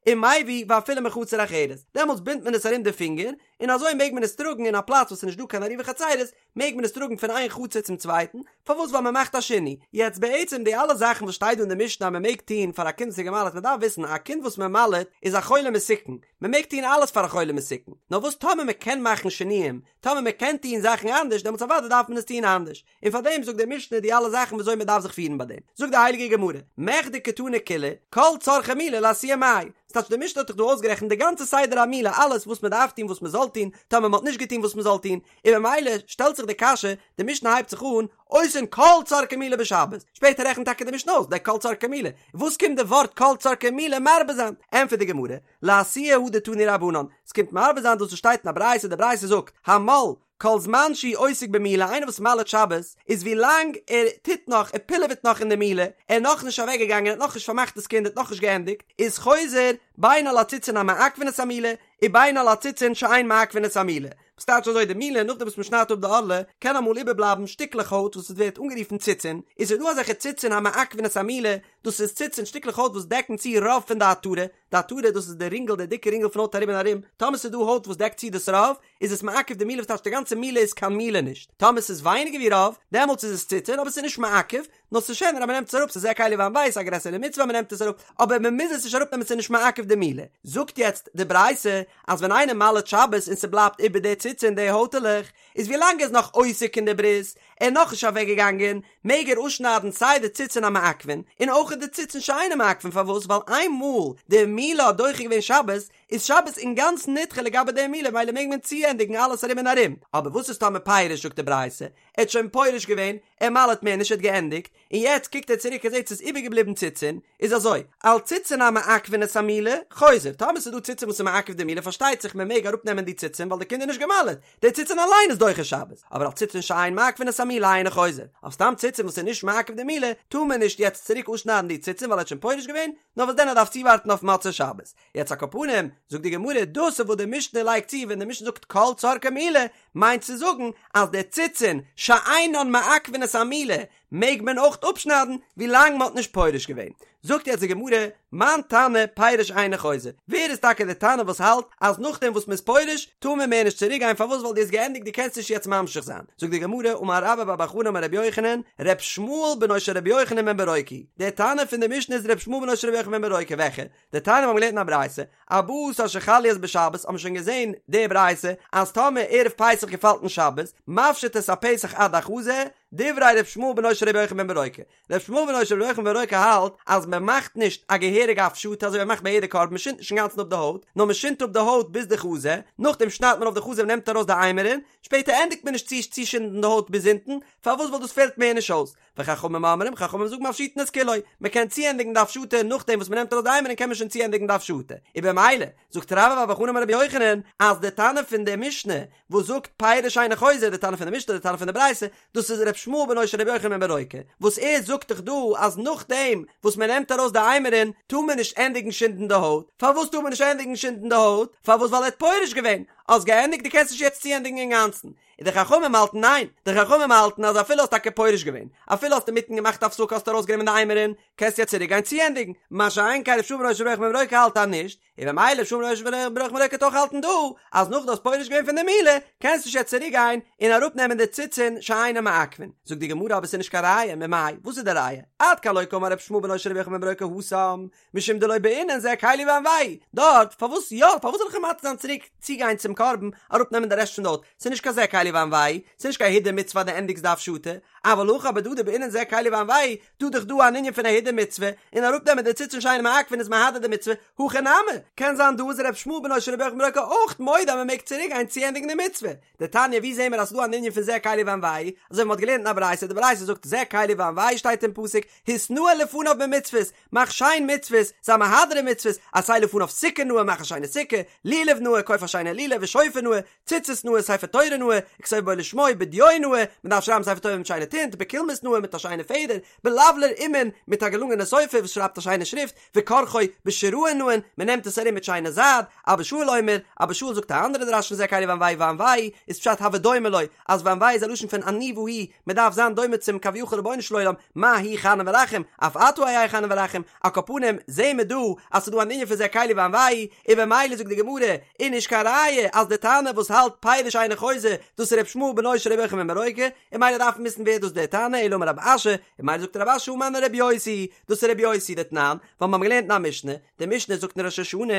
ומביא ואפילו מחצר אחרת, דעמאלטס בינדט מען עס ארום די פינגער, און אזוי מעג מען עס טראגן אין א פלאץ וואס איז נישט דא קיין עירובי חצירות, מעג מען עס טראגן פון איין חצר צום צווייטן, פארוואס ווייל מען מאכט א שינוי. יעצט בעצם די אלע זאכן וואס שטייט דא אין די משנה אז מען מעג טון פאר א קינד וואס איז געמל'עט, מען דארף וויסן א קינד וואס מען מל'עט איז א חולה מסוכן, מען מעג טון אלעס פאר א חולה מסוכן, נאר וואס טאמער מען קען מאכן שינויים, טאמער מען קען טון זאכן אנדערש דעמאלטס אוודאי דארף מען עס טון אנדערש, און פאר דעם זאגט די משנה די אלע זאכן וויאזוי מען דארף זיך פירן ביי דעם. זאגט די הייליגע גמרא, מכדי קתני כולהו, כל צרכי מילה לאתויי מאי. ס'טייטש די משנה האט דאך דא אויסגערעכנט די גאנצע סדר המילה אלעס וואס מען דארף טון וואס מען זאל טון, טאמער מען האט נישט געטון וואס מען זאל טון, און ממילא שטעלט זיך די קשיא, די משנה הייבט זיך אן, עושין כל צרכי מילה בשבת, שפעטער רעכנט טאקע די משנה אויס די כל צרכי מילה, וואס קומט די ווארט כל צרכי מילה מרבה זיין? ענטפערט די גמרא, לאתויי הא דתנו רבנן, ס'קומט מרבה זיין דאס וואס שטייט אין א ברייתא, די ברייתא זאגט, המל, כל זמן שהוא עוסק במילה, איינער וואס מל'עט שבת, איז ווי לאנג ער טוט נאך, ער פילעוועט נאך אין די מילה, ער איז נאכנישט אוועק געגאנגען, ער האט נאכנישט פארמאכט דאס קינד, ער האט נאכנישט געענדיגט, איז חוזר בין על הציצין המעכבין את המילה, ובין על הציצין שאין מעכבין את המילה. וואס טייטש אזוי די מילה, נאכדעם וואס מען שניידט אפ די ערלה, קען אמאל איבערבלייבן שטיקלעך הויט וואס עס ווערט אנגערופן ציצין, איז ס'דא אזעלכע ציצין המעכבין את המילה, דאס איז ציצין שטיקלעך הויט וואס דעקן צו רוב פון די עטרה, די עטרה דאס איז די רינגל די דיקע רינגל פון הויט ארום און ארום, טאמער ס'איז דא הויט וואס דעקט צו דאס רוב, איז עס מעכב די מילה וואס טייטש די גאנצע מילה איז קיין מילה נישט, טאמער ס'איז ווייניגער ווי רוב, דעמאלטס איז עס ציצין אבער ס'איז נישט מעכב, נאר ס'איז שענער אז מ'נעמט עס אראפ ס'איז זה קלי ואנוהו ס'איז א גרעסערע מצוה אז מ'נעמט עס אראפ, אבער מ'מוז עס נישט אראפנעמען ס'איז נישט מעכב די מילה. זאגט יעצט די ברייתא אז ווען איינער מל'עט שבת און ס'בלייבט איבער די ציצין די הויטעלעך, איז ווי לאנג ער איז נאך עוסק אין די ברית, ער איז נאכנישט אוועקגעגאנגען, מעג ער אפשניידן סיי די ציצין המעכבין און אויך די ציצין שאינם מעכבין פארוואס ווייל איינמאל די מילה האט דוחה געווען שבת איז שבת אינגאנצן נדחה לגבי די מילה מילא מעג מען צוענדיגן אלעס ארום און ארום אבער וואס איז טאמער פירש זאגט די ברייתא ער האט שוין פורש געווען ער מל'עט מער נישט ער האט געענדיגט און יעצט קוקט ער צוריק ער זעט ס'איז איבערגעבליבן ציצין איז אזוי על ציצין המעכבין את המילה חוזר טאמער ס'איז דא ציצין וואס איז מעכב די מילה פארשטייט זיך מען מעג אראפנעמען די ציצין ווייל די קינד איז נישט גע'מל'עט די ציצין אליין איז דוחה שבת, אבער על ציצין שאין מעכבין את המילה אינו חוזר, אויף סתם ציצין וואס איז נישט מעכב די מילה, טאר מען נישט יעצט צוריק אפשניידן די ציצין ווייל ער האט שוין פורש געווען, נאר וואס דען ער דארף צואווארטן אויף מוצאי שבת. יעצט על כל פנים, זאגט די גמרא, דאס איז וואס די משנה לייגט צו ווען די משנה זאגט כל צרכי מילה, מיינט צו זאגן אז די ציצין שאינן מעכבין את המילה מעג מען אויך אפשניידן ווילאנג מען האט נישט פורש געווען. זאגט יעצט די גמרא, מאן תנא פירש אינו חוזר, ווער איז טאקע די תנא וואס האלט אז נאכדעם וואס מען איז פורש טאר מען מער נישט צוריק גיין פארוואס ווייל דו האסט געענדיגט דו קענסט נישט יעצט ממשיך זיין, זאגט די גמרא, אמר רבה בר בר חנה אמר רבי יוחנן, ר' ישמעאל בנו של רבי יוחנן בן ברוקה, דער תנא פון די משנה איז ר' ישמעאל בנו של רבי יוחנן בן ברוקה, וועלכע? דתניא מיר האבן געלערנט אין א ברייתא, ארבעה עשר שחל להיות בשבת, האבן שוין געזען די ברייתא אז טאמער ערב פסח געפאלט אין שבת, מפשיט את הפסח עד החזה, דברי ר' ישמעאל בנו של ר' יוחנן בן ברוקה. ר' ישמעאל בנו של ר' יוחנן בן ברוקה האלט אז מען מאכט נישט א געהעריגע הפשטה אזוי ווי מען מאכט ביי יעדע קרבן, מען שינדט נישט אינגאנצן אפ די הויט, נאר מען שינדט אפ די הויט ביז די חזה, נאכדעם שניידט מען אויף די חזה און נעמט ארויס די אימורין, שפעטער ענדיגט מען נישט צו צושינדן די הויט ביז אונטן, פארוואס ווייל דאס פעלט מער נישט אויס. וחכמים אומרים, חכמים זאגן מפשיטין את כולו, מען קען צוענדיגן די הפשטה נאכדעם וואס מען נעמט ארויס די אימורין קען מען שוין צוענדיגן די הפשטה, און במילא, זאגט רבה בר בר חנה אמר רבי יוחנן, אז די תנא פון די משנה וואס זאגט פירש אינו חוזר, די תנא פון די משנה, די תנא פון די ברייתא, דאס איז ר' ישמעאל בנו של רבי יוחנן בן ברוקה, וואס ער זאגט דאך דא אז נאכדעם וואס מען נעמט ארויס די אימורין טאר מען נישט ענדיגן שינדן די הויט, פארוואס טאר מען נישט ענדיגן שינדן די הויט? פארוואס ווייל ער האט פורש געווען, האסט געענדיגט דו קענסט נישט יעצט צוענדיגן אינגאנצן, און די חכמים האלטן ניין, די חכמים האלטן אז אפילו האסט טאקע פורש געווען, אפילו האסט אינמיטן געמאכט הפסקה האסט ארויסגענומען די אימורין, קענסט יעצט צוריק גיין צוענדיגן, מה שאין כן ר' ישמעאל בנו של ר' יוחנן בן ברוקה האלט אז נישט, און במילא ר' ישמעאל בנו של ר' יוחנן בן ברוקה וועט אויך האלטן דא, אז נאך דו האסט פורש געווען פון די מילה, קענסט נישט יעצט צוריק גיין און אראפנעמען די ציצין שאינן מעכבין. זאגט די גמרא אבער ס'איז נישט קיין ראיה, ממאי, וואס איז די ראיה? עד כאן לא קאמר ר' ישמעאל בנו של ר' יוחנן בן ברוקה התם, משום דלא בעינן זה קלי ואנוהו, דארט, פארוואס יא, פארוואס זאל איך אים מתיר זיין צוריק צוגיין צום קרבן אראפנעמען די רעשט פון די הויט, ס'איז נישט קיין זה קלי ואנוהו, ס'איז נישט קיין הידור מצוה אז דו ענדיגסט די הפשטה, אבל הכא אבער דא דבעינן זה קלי ואנוהו, דא דאך דא אן ענין פון א הידור מצוה, און אראפנעמען די ציצין שאינן מעכבין איז מהדר די מצוה, הכא נמי, קען זיין דא איז ר' ישמעאל בנו של רבי יוחנן בן ברוקה אויך מודה אז מ'מעג צוריקגיין צוענדיגן די מצוה, דתניא ווי זעהן מיר אז ס'דא אן ענין פון זה קלי ואנוהו, אזוי ווי מ'האט געלערנט אין א ברייתא, די ברייתא זאגט זה קלי ואנוהו שטייט אין פסוק, התנאה לפניו במצוות, מאך שיין מצוות, זיי מהדר אין מצוות, עשה לפניו סוכה נאה, מאך א שיינע סוכה, לולב נאה, קויף א שיינע לולב, ושופר נאה, ציצית נאה, ספר תורה נאה, וכתוב בו לשמו, בדיו נאה, מ'דארף שרייבן ספר תורה מיט שיינע טינט, בקולמוס נאה, מיט א שיינע פעדער, בלבלר אומן, מיט א געלונגענע סופר וואס שרייבט א שיינע שריפט, וכורכו בשיראין נאין, מען נעמט עס ארום מיט שיינע זייד, אבא שאול אומר, אבא שאול זאגט א אנדערע דרש פון זה קלי ואנוהו ואנוהו איז פשט הוי דומה לו, אז ואנוהו איז א לשון פון עניוה הוא, מען דארף זיין דומה צום כביכול רבונו של עולם, מה הוא חנון ורחום, אף אתה היה חנון ורחום, על כל פנים זעהן מיר דא אז ס'איז דא אן ענין פון זה קלי ואנוהו, און במילא זאגט די גמרא, איז נישט קיין ראיה אז די תנא וואס האלט פירש אינו חוזר, דאס איז ר' ישמעאל בנו של ר' יוחנן בן ברוקה, און ממילא דארף מען וויסן ווער דאס דער תנא, אלא אמר רב אשי, און ממילא זאגט רב אשי הא מני רבי יוסי, דאס איז רבי יוסי דתנן, ווייל מיר האבן געלערנט אין א משנה, די משנה זאגט אין ראש השנה,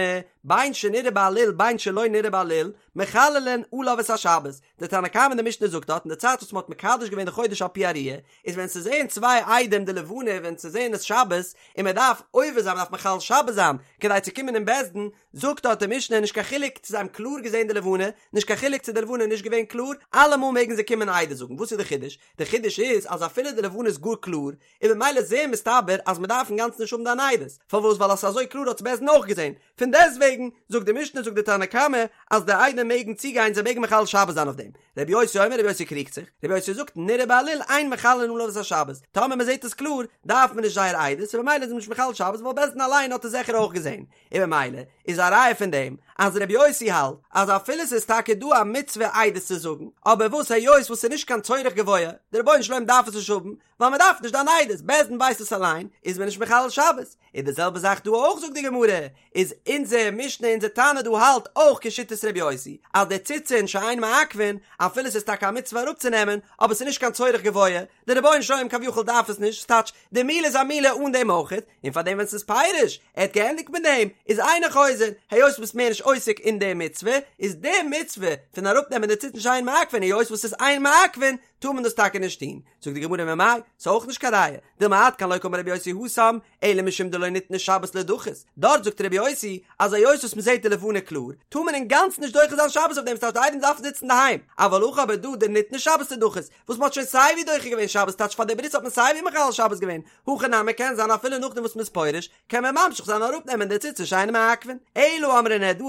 בין שנראה בעליל בין שלא נראה בעליל, מחללין עליו את השבת, די תנא קמא אין די משנה זאגט דארט אין די צייט וואס מען האט מקדש געווען די חודש על פי הראיה, איז ווען ס'זעהן צוויי עדים די לבנה ווען ס'זעהן עס שבת, און מען דארף עובר זיין מען דארף מחלל שבת זיין כדי צו קומען אין בית דין, זאגט דארט די משנה נישט קיין חילוק צו זיי האבן קלאר געזעהן די לבנה, נישט קיין חילוק צו די לבנה איז נישט געווען קלאר, אלעמאל מעגן זיי קומען עדות זאגן, וואס איז די חידוש? די חידוש איז אז אפילו די לבנה איז גאר קלאר, איז במילא זעהר מסתבר אז מען דארף אינגאנצן נישט האבן דיין עדות, פארוואס ווייל אז ס'איז אזוי קלאר האט עס בית דין אויך געזעהן, פון דעסטוועגן זאגט די משנה זאגט די תנא קמא אז די עדים מעגן צוגיין זיי מעגן מחלל שבת זיין אויף דעם, רבי יוסי אומר רבי יוסי קריגט זיך, רבי יוסי זאגט נראה בעליל אין מחללין עליו את השבת, טאמער מען זעהט עס קלאר דארף מען נישט זייער עדות און במילא איז מען נישט מחלל שבת ווייל בית דין אליין האט עס זיכער אויך געזעהן, און במילא איז א ראיה פון דעם אז רבי יוסי האלט אז אפילו ס'איז טאקע דא א מצוה עדות צו זאגן, אבער וואס היות וואס ס'איז נישט קיין צורך גבוה, די רבונו של עולם דארף עס נישט האבן, ווייל מ'דארף נישט דיין עדות, בית דין ווייסט עס אליין, איז מען נישט מחלל שבת. און די זעלבע זאך דא אויך זאגט די גמרא, איז אונזער משנה אונזער תנא דא האלט אויך כשיטת רבי יוסי, אז די ציצין שאין מעכבין, אפילו ס'איז טאקע א מצוה אראפצונעמען, אבער ס'איז נישט קיין צורך גבוה, די רבונו של עולם כביכול דארף עס נישט, ס'טייטש, די מילה איז א מילה אן דעם אויכעט, און פאר דעם ווען ס'איז פירש, ער האט געענדיגט מיט דעם, איז אינו חוזר, היות ביסט מער נישט עוסק אין די מצוה, איז די מצוה פון אראפנעמען די ציצין שאין מעכבין היות וואס ס'איז אין מעכבין, טאר מען דאס טאקע נישט טון. זאגט די גמרא ממאי, ס'איז אויך נישט קיין ראיה, דילמא עד כאן לא קאמר רבי יוסי התם, אלא משום דלא ניתנה שבת לידחות, דארט זאגט רבי יוסי אז היות וואס מ'זעט די לבנה קלאר, טאר מען אינגאנצן נישט דוחה זיין שבת אויף דעם, ס'טייטש די עדים דארפן זיצן אינדערהיים, אבל הכא אבער דא דניתנה שבת לידחות, וואס מ'האט שוין סייווי דוחה געווען שבת טייטש פאר די ברית האט מען סייווי מחלל שבת געווען, הכא נמי קען זיין אפילו נאכדעם וואס מ'איז פורש קען מען ממשיך זיין אראפ נעמען די ציצין שאין מעכבין, אלא אמרי נהרדעי,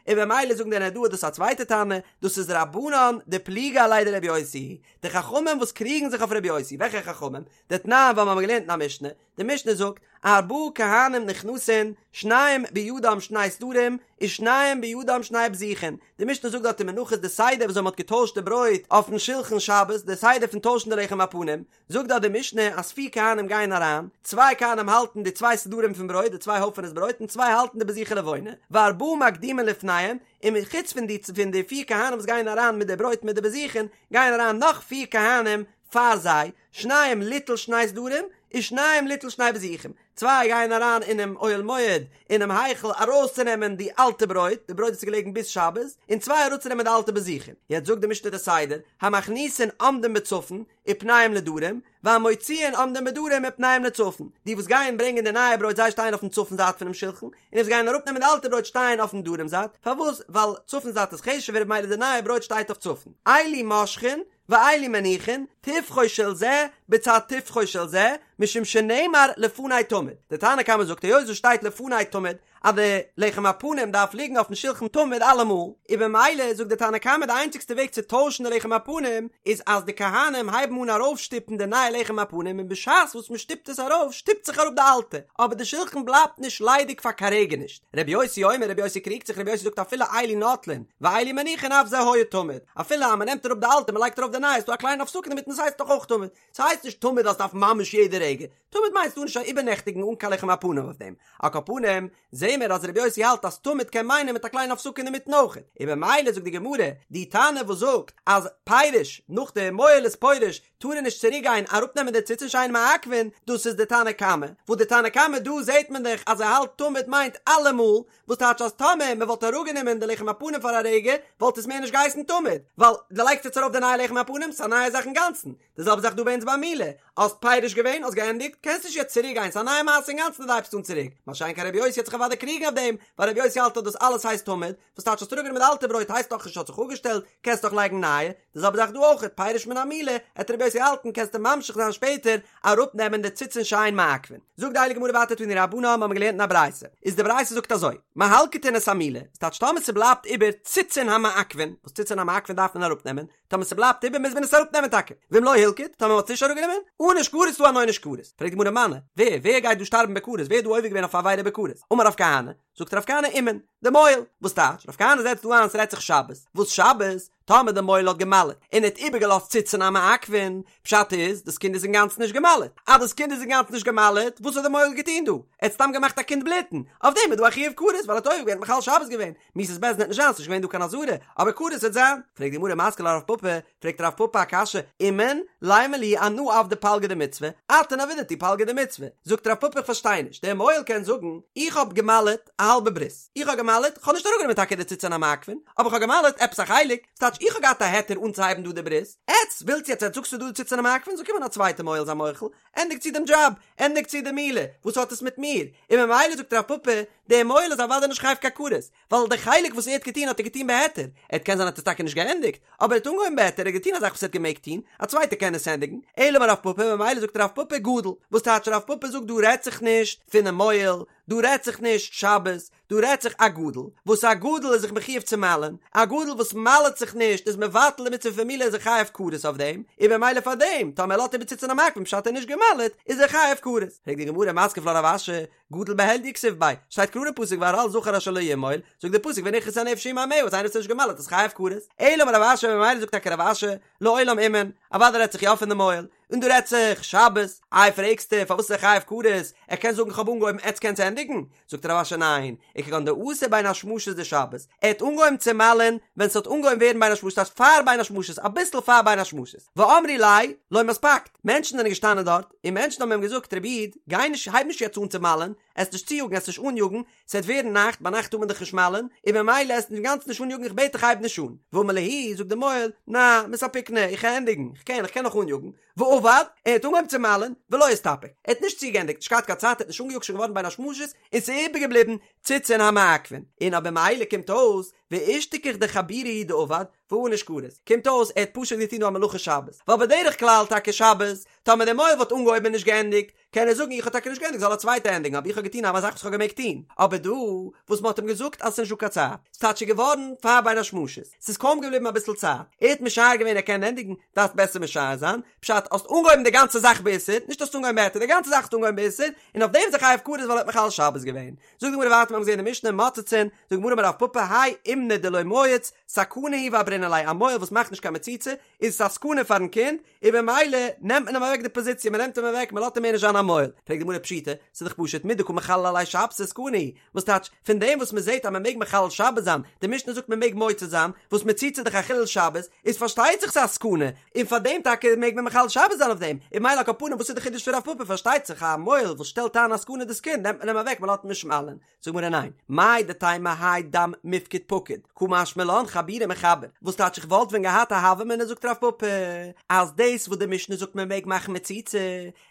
און במילא זאגן די נהרדעי דאס איז א צווייטע תנא, דאס איז רבנן דפליגי עליה דרבי יוסי, די חכמים וואס קריגן זיך אויף רבי יוסי, וועלכע חכמים? דתנן ווייל מיר האבן געלערנט אין א משנה, די משנה זאגט, ארבעה כהנים נכנסין, שניים בידם שני סדרים, ושניים בידם שני בזיכין, די משנה זאגט דארט אין מנחות די סדר וויאזוי מען האט געטוישט די ברויט אויפן שלחן שבת, די סדר פון טוישן די לחם הפנים, זאגט דארט די משנה אז פיר כהנים גייען אריין, צוויי כהנים האלטן די צוויי סדרים פון ברויט, די צוויי הויפענעס ברויט, און צוויי האלטן די בזיכי לבונה, וארבעה מקדימין לפניהם, און חוץ פון די פון די פיר כהנים וואס גייען אריין מיט די ברויט מיט די בזיכין, גייען אריין נאך פיר כהנים פאר זיי, שניים ליטול שני סדרים, ושניים ליטול שני בזיכים, צוויי גייען אריין אינעם אוהל מועד אינעם היכל ארויסצונעמען די אלטע ברויט, די ברויט וואס איז געלעגן ביז שבת, און צוויי אראפצונעמען די אלטע בזיכין. יעצט זאגט די משנה די סדר, המכניסין עומדים בצפון, ופניהם לדרום, והמוציאין עומדים בדרום ופניהם לצפון, די וואס גייען ברענגען די נייע ברויט זיי שטייען אויפן צפון זייט פונעם שלחן, און די וואס גייען אראפנעמען די אלטע ברויט שטייען אויפן דרום זייט, פארוואס? ווייל צפון זייט איז חשוב'ער ממילא די נייע ברויט שטייט אויף צפון. אלו מושכין ואלו מניחין, טפחו של זה בצד טפחו של זה, משום שנאמר לפני תמיד. די תנא קמא זאגט היות עס שטייט לפני תמיד אז די לחם הפנים דארף ליגן אויפן שלחן תמיד אלעמאל, און במילא זאגט די תנא קמא די איינציגסטע וועג צו טוישן די לחם הפנים איז אז די כהנים הייבן אן ארויפשטופן די נייע לחם הפנים און בשעת וואס מען שטופט עס ארויף שטופט זיך אראפ די אלטע, אבער די שלחן בלייבט נישט ליידיג פאר קיין רגע נישט. רבי יוסי אומר רבי יוסי קריגט זיך רבי יוסי זאגט אפילו אלו נוטלין ואלו מניחין אף זה היה תמיד, אפילו אז מען נעמט אראפ די אלטע מען לייגט ארויף די נייע איז דא א קליינע הפסקה אינמיטן עס הייסט דאך אויך תמיד, ס'הייסט נישט תמיד אז ס'דארף ממש יעדע רגע, תמיד מיינט ס'טאר נישט איבערנעכטיגן אן קיין לחם הפנים אויף דעם. על כל פנים, זעהן מיר אז רבי יוסי האלט אז תמיד קען מיינען מיט א קליינע הפסקה אינמיטן אויך. און במילא זאגט די גמרא, די תנא וואס זאגט אז פירש, נאך די מוהל איז פורש, טאר ער נישט צוריק גיין אראפנעמען די ציצין שאין מעכבין, דאס איז די תנא קמא. וואס די תנא קמא דא זעהט מען דאך אז ער האלט תמיד מיינט אלעמאל, וואס טייטש אז טאמער מען וואלט אראפגענומען די לחם הפנים פאר א רגע, וואלט עס מער נישט געהייסן תמיד, ווייל דו לייגסט יעצט ארויף די נייע לחם הפנים, ס'איז א נייע זאך אינגאנצן. די זעלבע זאך דא ביי אונז ביי מילה, האסט פורש געווען, האסט געענדיגט, קענסט נישט יעצט צוריק גיין, ס'איז א נייע מעשה אינגאנצן אז דו הייבסט אן צוריק, מה שאין כן רבי יוסי וועט זיך אוודאי קריגן אויף דעם, ווייל רבי יוסי האלט אז דאס אלעס הייסט תמיד, וואס טייטש האסט אראפגענומען די אלטע ברויט הייסט נאך נישט האט זיך אפגעשטעלט, קענסט דאך לייגן נייע, די זעלבע זאך דא אויך, פירש מן המילה, עט רבי יוסי האלטן קענסטו ממשיך זיין שפעטער אראפנעמען די ציצין שאין מעכבין. זאגט די הייליגע גמרא ווייטער תנו רבנן האבן מיר געלערנט אין א ברייתא, איז די ברייתא זאגט אזוי, מהלקטין את המילה, ס'טייטש טאמער ס'בלייבט איבער ציצין המעכבין, וואס ציצין המעכבין דארף מען אראפנעמען, טאמער ס'בלייבט איבער מוז מען עס אראפנעמען טאקע, ואם לא הלקיט, טאמער מ'האט עס נישט אראפגענומען, ענוש כרת איז דא אן עונש כרת. פרעגט די גמרא מני, ווער, ווער גייט דא שטארבן בכרת, ווער איז דא עובר געווען אויף א עבירה בכרת? אמר רב כהנא, זאגט רב כהנא אומן, די מוהל, וואס טייטש, רב כהנא זעצט דא איין ס'רעדט זיך שבת, וואס שבת? טאמער די מוהל האט געמל'עט, און ער האט איבערגעלאזט ציצין המעכבין, פשט איז, דאס קינד איז אינגאנצן נישט געמל'עט, אז דאס קינד איז אינגאנצן נישט געמל'עט, וואס האט די מוהל געטון דא? ער האט סתם געמאכט א קינד בלוטן, אויף דעם איז דא א חיוב כרת, ווייל ער האט עובר געווען, מחלל שבת געווען, מיתת בית דין וועט נישט זיין, ס'נישט געווען דא קיין אזהרה, אבער כרת וועט זיין. פרעגט די גמרא מתקיף לה רב פפא, פרעגט רב פפא א קשיא, אומן, לימא להו אנא עבדי פלגא דמצוה, אתון עבידתו פלגא דמצוה. זאגט רב פפא איך פארשטיי נישט, דער מוהל קען זאגן, איך האב געמל'עט א האלבע ברית, איך האב געמל'עט, כ'האב נישט אראפגענומען טאקע די ציצין המעכבין, אבער כ'האב געמל'עט עפעס א חלק, ס'טייטש איך האב געהאט א היתר אנצוהייבן דא די ברית, עטץ ווילטס יעצט עטץ זאגטס ס'איז דא די ציצין המעכבין, זאל קומען א צווייטע מוהל זיי מוחל, ענדיג צו דעם דזשאב, ענדיג צו די מילה, וואס האט עס מיט מיר? און ממילא זאגט רב פפא, דער מוהל איז אוודאי נישט חייב קיין כרת, ווייל די חלק וואס ער האט געטון האט ער געטון בהיתר, ער האט קען זיין האט עס טאקע נישט געענדיגט, אבער ער האט אנגעהויבן בהיתר, ער האט געטון א זאך וואס ער האט געמעגט טון, א צווייטער קען עס ענדיגן, אלא אמר רב פפא, ממילא זאגט רב פפא גדול, וואס טייטש רב פפא זאגט דא רעדט זיך נישט פונעם מוהל, דא רעדט זיך נישט שבת, דא רעדט זיך א גדול, וואס א גדול איז זיך מחויב צו מל'ען, א גדול וואס מל'עט זיך נישט איז מבטל די מצוה פון מילה איז ער חייב כרת אויף דעם, און במילא פאר דעם, טאמער ער לאזט איבער ציצין המעכבין פשט ער איז נישט געמל'עט, איז ער חייב כרת. פרעגט די גמרא מתקיף לה רב אשי, גדול בהדיא כתיב ביה, שטייט קלאר אין פסוק וערל זכר אשר לא ימול, זאגט דער פסוק ונכרתה הנפש ההיא מעמיה אז איינער וואס איז נישט געמל'עט איז חייב כרת. אלא אמר רב אשי ממילא זאגט טאקע רב אשי, לעולם אומן, אוודאי רעדט זיך יא פון די מוהל, און דא רעדט זיך שבת, איי פרעגסטו פארוואס איז ער חייב כרת, ער קען זאגן כ'האב אנגעהויבן עטץ קענטס ענדיגן, זאגט רב אשי ניין, וכגון דאתא בין השמשות דשבת, ער האט אנגעהויבן צו מל'ען ווען ס'האט אנגעהויבן ווערן בין השמשות ס'הייסט פאר בין השמשות אביסל פאר בין השמשות, ואמרי ליה לא מספקת, מענטשן זענען געשטאנען דארט, און מענטשן האבן אים געזאגט רבי איד, גיי נישט הייב נישט יעצט אן צו מל'ען, עסט נישט צויאגן עסט נישט אניאגן, ס'עט ווערן נאכט, ביינאכט טאר מען דאך נישט מל'ען, און במילא עסט אינגאנצן נישט אניאגן איך בעט דיך הייב נישט אן. ואמר להו, זאגט די מוהל, נא, מספיקנא, איך קען ענדיגן, איך קען, איך קען נאך אניאגן. ועבד, ער האט אנגעהויבן צו מל'ען, ולא אסתפק, ער האט נישט צוגעענדיגט, נישט געהאט קיין צייט, ער האט נישט אנגעיאגט שוין געווארן בין השמשות, און ס'איז איבערגעבליבן ציצין המעכבין. און אויב במילא קומט אויס, ואשתכח דחבורא הוא דעבד, וענוש כרת. קומט אויס ער האט פשוט געטון דא א מלאכה שבת. ווייל בדרך כלל טאקע שבת, טאמער דער מוהל וואלט אנגעהויבן און נישט געענדיגט, קען ער זאגן איך האב טאקע נישט געענדיגט זאל א צווייטער ענדיגן אבער איך האב געטון א זאך וואס איך האב געמעגט טון, אבער דא וואס מען האט אים געזאגט אז עס איז נישט דא קיין צייט, ס'טייטש ס'איז געווארן פאר בין השמשות, ס'איז קוים געבליבן אביסל צייט, ער האט משער געווען ער קען ענדיגן, דארפסט בעסער משער זיין, פשט, האסט אנגעהויבן די גאנצע זאך באיסור, נישט האסט אנגעהויבן בהיתר, די גאנצע זאך האסטו אנגעהויבן באיסור, און אויף דעם איז ער חייב כרת ווייל ער האט מחלל שבת געווען. זאגט די גמרא ווייטער מיר האבן געזען אין די משנה מוצצין, זאגט די גמרא אמר רב פפא האי אומנא דלא מייץ, סכנה הוא ועברינן ליה, א מוהל וואס מאכט נישט קיין מציצה, איז עס א סכנה פארן קינד, און במילא נעמט מען אים אוועק די פאזיציע, מען נעמט אים אוועק, מען לאזט אים מער נישט זיין א מוהל. פרעגט די גמרא פשיטא, ס'איז דאך פשוט מדקא מחללי עליה שבתא סכנה הוא, וואס טייטש, פון דעם וואס מען זעט אז מען מעג מחלל שבת זיין, די משנה זאגט מען מעג מוצץ זיין, וואס מציצה איז דאך א חילול שבת, איז פארשטייט זיך ס'איז א סכנה, און פאר דעם טאקע מעג מען מחלל שבת זיין אויף דעם, און ממילא על כל פנים וואס איז די חידוש פון רב פפא, פארשטייט זיך א מוהל וואס שטעלט איין א סכנה דאס קינד נעמט מען אים אוועק מען לאזט אים נישט מל'ען, זאגט גמרא ניין, מהו דתימא האי דם מיפקד פקיד, קא משמע לן חבורי מחבר, וואס טייטש איך וואלט ווען געהאט א הוה אמינא זאגט רב פפא, אז דאס וואס די משנה זאגט מען מעג מאכן מציצה,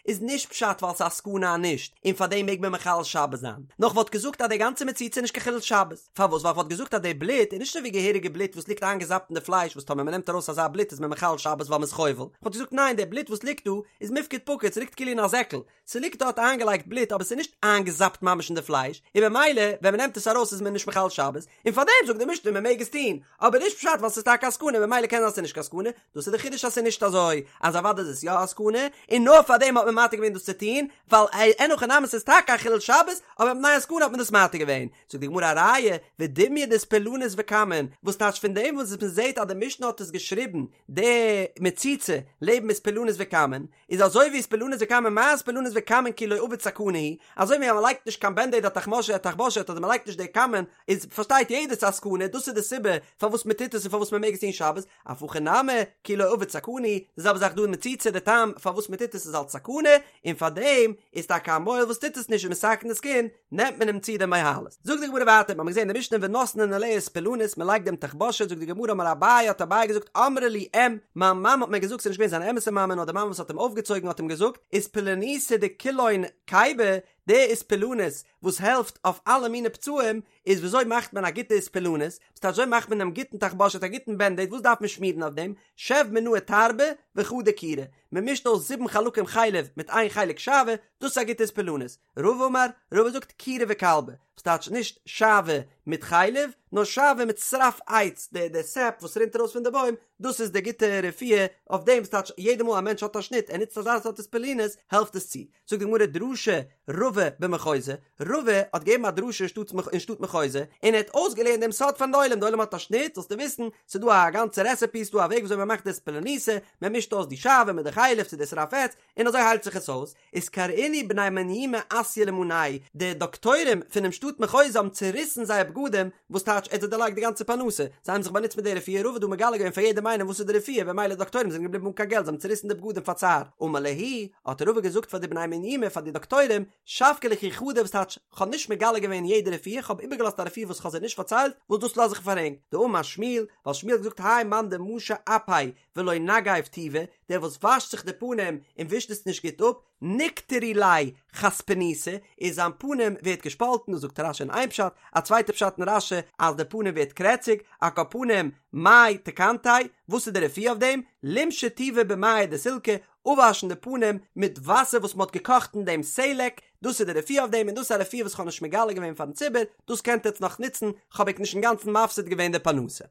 איז נישט פשט ווייל ס'איז א סכנה אז נישט, און פארדעם מעג מען מחלל שבת זיין, נאר כ'וואלט געזאגט אז די גאנצע מציצה איז נישט קיין חילול שבת, פארוואס ווייל כ'וואלט געזאגט אז די בלוט איז נישט אזוי ווי געהעריגע בלוט וואס ליגט איינגעזאפט אין די פלייש וואס טאמער מ'נעמט ארויס אזא בלוט איז מען מחלל שבת ווייל מ'איז חובל, כ'וואלט געזאגט ניין די בלוט וואס ליגט דא איז מיפקד פקיד ס'ליגט כאילו אין א זעקל, ס'ליגט דארט איינגעלייגט בלוט אבער ס'איז נישט איינגעזאפט ממש אין די פלייש, און במילא ווען מ'נעמט עס ארויס איז מען נישט מחלל שבת, און פארדעם זאגט די משנה מ'מעג עס טון, אבער נישט פשט ווייל ס'איז טאקע א סכנה במילא קען זיין ס'איז נישט קיין סכנה, דאס איז די חידוש אז ס'איז נישט אזוי אז אוודאי איז עס יא א סכנה, און נאר פארדעם האט מען מתיר געווען דאס צו טון, ווייל אין הכי נמי ס'איז טאקע א חילול שבת, אבער מפני הסכנה האט מען דאס מתיר געווען. זאגט די גמרא א ראיה, ודומיא דאיספלנית וכמון, וואס טייטש פון דעם וואס מ'זעט אז די משנה האט עס געשריבן די מציצה לעבן איספלנית וכמון, איז אזוי ווי איספלנית וכמון מה איספלנית וכמון כי לא עביד סכנה הוא, אזוי ווי אז מען לייגט נישט קיין בענדעיד א תחמושת תחבושת אדער מען לייגט נישט די כמון, איז פארשטייט יעדער ס'איז א סכנה, דאס איז די סיבה פארוואס מען טוט עס און פארוואס מען מעג עס טון שבת, אף הכא נמי כי לא עביד סכנה הוא, די זעלבע זאך דא אין מציצה די טעם פארוואס מען טוט עס איז אלץ סכנה, און פארדעם איז טאקע א מוהל וואס טוט עס נישט און מסכן דאס קינד, נעמט מען אים צו די מוהלות. זאגט די גמרא ווייטער, מ'האמיר געזען אין די משנה ונותנין עליה איספלנית, מ'לייגט דעם תחבושת, זאגט די גמרא אמר אביי, האט אביי געזאגט אמרה לי אם, מיין מאמע האט מיר געזאגט, ס'איז נישט געווען זיין אמת'ע מאמע נאר די מאמע וואס האט אים אויפגעצויגן האט אים געזאגט, איספלניתא דכולהון כיבי, די איספלנית וואס העלפט אויף אלע מיני פצעים, איז וויאזוי מאכט מען א גוטע איספלנית, ס'טייטש וויאזוי מאכט מען דעם גוטן תחבושת א גוטן בענדעיד וואס דארף מען שמירן אויף דעם, שב מינאי תרבא וחדא כירא, מ'מישט אויס זיבן חלקים חלב מיט איין חלק שעוה, דאס איז א גוטע איספלנית. רבא אמר, רבא זאגט כירא וכלבא, וואס טייטש נישט שעוה מיט חלב, נאר שעוה מיט שרף עץ, די די סעפ וואס רינט ארויס פון די בוים, דאס איז די גוטע רפואה אויף דעם, וואס טייטש יעדע מאל א מענטש האט א שניט, ער נוצט אזא סארט איספלנית, העלפט עס צו. זאגט די גמרא דרשה רבא במחוזא, רבא האט געגעבן א דרשה אין שטאט מחוזא, און ער האט אויסגעלערנט דעם סוד פארן עולם, די עולם האט א שניט, זאלסטו וויסן, ס'איז דא א גאנצע רעסעפי, ס'איז דא א וועג וויאזוי מ'מאכט די איספלניתא, מ'מישט אויס די שעוה מיט די חלב צו די שרף עץ, און אזוי היילט זיך עס אויס, איז קרעינהו בני מניומי אסיא למיניה, די דאקטוירים פונעם שטאט מחוזא האבן צוריסן זייער בגדים, וואס טייטש ער האט זיי דערלייגט די גאנצע פרנסה, זיי האבן זיך באנוצט מיט די רפואה, רבא האט דא מגלה געווען פאר יעדעם איינעם וואס איז די רפואה, במילא די דאקטוירים זענען געבליבן אן קיין געלט, זיי האבן צוריסן די בגדים פאר צער, אמר להו, האט רבא געזאגט פאר די בני מניומי פאר די דאקטוירים, שבקי לכו חדא וואס טייטש, כ'האב נישט מגלה געווען יעדע רפואה, כ'האב איבערגעלאזט א רפואה וואס כ'האב זיי נישט פארציילט, וואס דאס לאז איך פאר ענק, דאמר שמואל, ווייל שמואל האט געזאגט האי מאן דמשי אפיה ולא נגיב טובא, דער וואס וואשט זיך די פנים און ווישט עס נישט גוט אפ, נקטרו ליה חספניתא, איז זיין פנים ווערט געשפאלטן, דאס זאגט רש"י אין איין פשט, א צווייטע פשט אין רש"י אז די פנים ווערט קרעציג, על כל פנים, מאי תקנתיה, וואס איז די רפואה אויף דעם? לימשי טובא במיא דסילקא, אפוואשן די פנים מיט וואסער וואס מען האט געקאכט אין דעם סלק, דאס איז די רפואה אויף דעם, און דאס איז א רפואה וואס איך האב נישט מגלה געווען פארן ציבור, דאס קענט עטץ נאך נוצן, כ'האב ענק נישט אינגאנצן מפסיד געווען די פרנסה.